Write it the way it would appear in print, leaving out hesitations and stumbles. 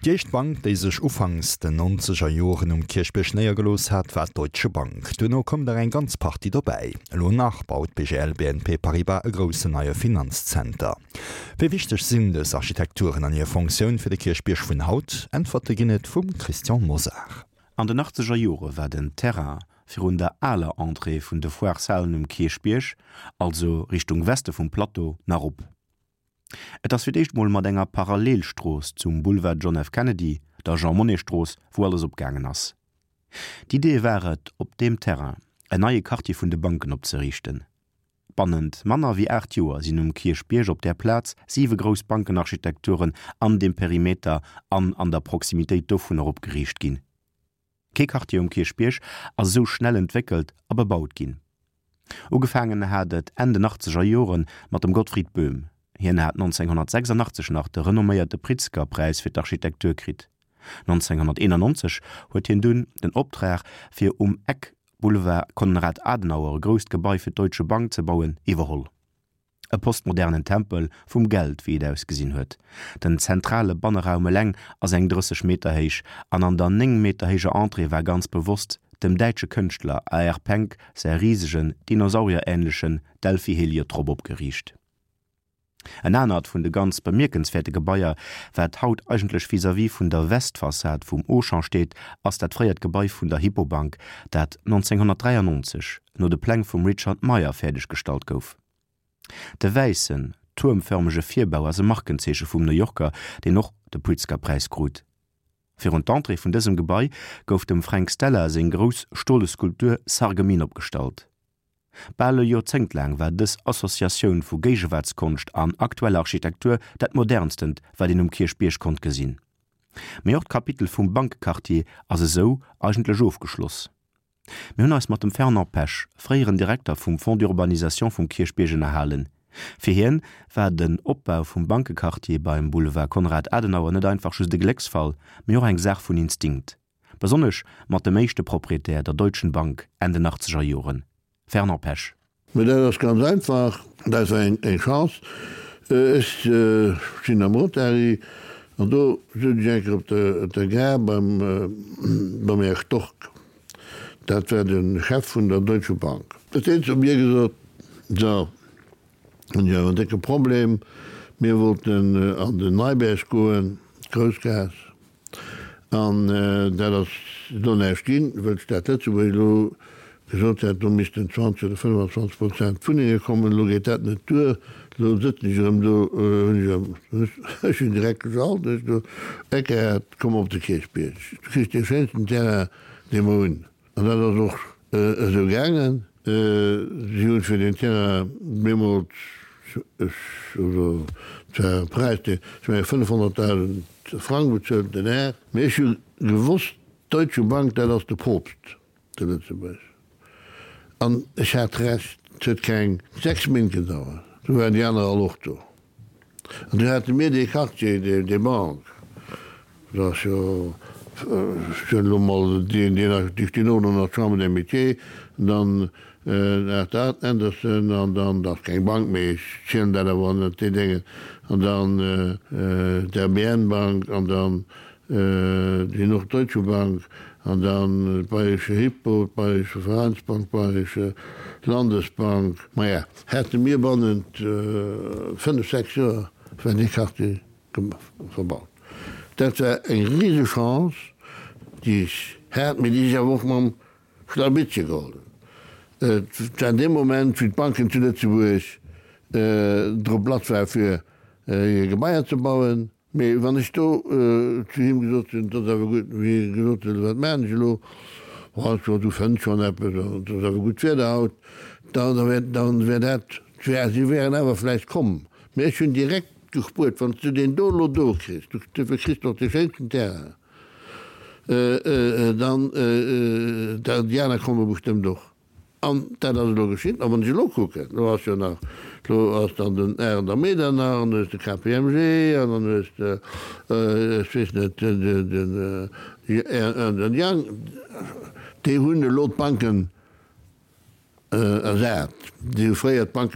Déi éischt Bank, déi sech ufanks den nonzeger Joren um Kierchbierg néiergelooss hat, war d'Deutsche Bank. Duerno koum der eng ganz Partie dobäi. Elo nach baut d'BGL BNP Paribas e groussen neie Finanzzenter. Wéi wichteg sinn dës Architekturen an hir Fonctioun fir de Kierchbierg vun haut? Äntwerte ginn et vum Christian Mosar. An den achtzeger Jore war den Terrain virun der aler Entrée vun de Foireshalen um Kierchbierg, also Richtung Weste vum Plateau, nach op. Et ass fir d'éischt mol mat enger Parallelstrooss zum Boulevard John F. Kennedy, der Jean-Monnet-Strooss, wou alles opgaangen ass. D'Idee war et, op deem Terrain en neie Quartier vun de Banken opzeriichten. Bannent manner wéi 8 Joer sinn um Kierchbierg op där Plaz siwe grouss Bankenarchitekturen an deem Perimeter an an der Proximitéit dovunner opgeriicht ginn. Kee Quartier um Kierchbierg ass esou schnell entwéckelt a bebaut ginn. Ugefaangen hat et Enn den achtzeger Jore mat dem Gottfried Böhm. Hien hat 1986 nach de renomméierte Pritzker-Präis fir d'Architektur kritt. 1991 huet hien dunn den Optrag, fir um Eck Boulevard Konrad Adenauer e grousst Gebai fir d'Deutsche Bank ze bauen, iwwerholl. E postmodernen Tempel vum Geld, wéi et ausgesinn huet. Den zentrale Banneraum eleng ass eng 30 Meter héich an an der 9 Meter héijer Entrée war ganz bewosst dem däitsche Kënschtler AR. Penck säi risegen, dinosaurierähnlechen Delphi-Heliotrop opgeriicht. En anert vun de ganz bemierkenswäerte Gebaier, wat haut eigentlech vis-à-vis vun der Westfassad vum Auchan steet, ass dat fréiert Gebai vun der Hypobank, dat 1993 no de Pläng vum Richard Meier fäerdeg gestallt gouf. De wäissen, tuermfërmege Virbau ass e Markenzeeche vum New Yorker, deen och de Pritzker-Präis krut. Virun d'Entrée vun dësem Gebai gouf dem Frank Stella seng grouss stole Skulptur Sarreguemines opgestallt. Bal e Joerzéngt laang war dës Associatioun vu Géigewaartskonscht an aktueller Architektur dat modernstent, wat een um Kierchbierg konnt gesinn. Mee och d'Kapitel vum Bankequartier ass esou eigentlech ofgeschloss. Mir hunn eis mat dem Fernand Pesch, fréieren Direkter vum Fonds d'urbanisation vum Kierchbierg ënnerhalen. Fir hien war den Opbau vum Bankequartier beim Boulevard Konrad Adenauer net einfach just e Glécksfall, mee och eng Saach vun Instinkt. Besonnesch mat dem éischte Proprietär, der Deutschen Bank, Enn den achtzeger Joren. Fernand Pesch. Mä dat ass ganz einfach, dat war eng Chance. Ech sinn am Rotary an do sot ech eng Kéier op der Gare beim Här Stork, dat war de Chef vun der Deutsche Bank, huet deen zu mir gesot, So, hunn ech awer en décke Problem, mir wollten an den Neiberg goen, d'Groussgaass, An dat ass elo näischt ginn, wëll d'Stad Lëtzebuerg elo gesot hat, do missten 20 oder 25 Prozent Wunnenge kommen. Elo geet dat net duer. Elo sëtzen ech erëm do, hunn ech erëm, ech hunn direkt geschalt, hunn ech do Eckehard, komm op de Kierchbierg, du kriss dee schéinsten Terrain, dee mer hunn. An dat ass och esou gaangen. Si hunn fir deen Terrain deemools, ech, also et war e Präis, deen, ech mengen 500.000 Frang bezuelt, den Här. Mee ech hu gewosst, d'Deutsche Bank, dat ass de Poopst zu Lëtzebuerg. An ech hat Recht, et huet keng 6 Méint gedauert, du waren déi aner all och do. An du hate mir dee Quartier, déi Bank, dat ass jo, ech soen elo mol, déi stinn och elo nach d'Chambre des Métiers, dann Arthur Andersen an dann, dat ass keng Bank, mee ech zielen dat awer ënnert déi Déngen, an dann d'RBN-Bank an dann déi Norddeutsche Bank an dann d'Bayerische Hypo, d'Bayerische Vereinsbank, d'Bayerische Landesbank. Maja, hätte mir bannent fënnef, sechs Joer war dee Quartier verbaut. Dat war eng rise Chance, déi ech hat, mee déi ech awer och mam Schlawittche geholl hunn. Et war dee Moment, wéi d'Banken zu Lëtzebuerg drop lass waren, fir hir Gebaier ze bauen. Mee wann ech do zu him gesot hunn, 't ass awer gutt, wéi hie gesot huet, wat maachen ech elo, oh, ech sot, du fënns schonn eppes an et ass awer gutt Wieder haut, da wär, da wär dat, si wären awer vläicht komm. Mee ech hunn direkt gespuert, wann s du deen do elo do kriss, du kriss doch dee schéinsten Terrain, dann, déi aner komme bestëmmt och. An dat ass elo geschitt. A wann ech elo kucken, elo ass jo nach, elo ass dann den Arend a Medernach, an du hues de KPMG, an dann hues de, ech weess net, den Ernst and Young, déi hunn elo d'Banken ersat. Déi hu fréier d'Banke.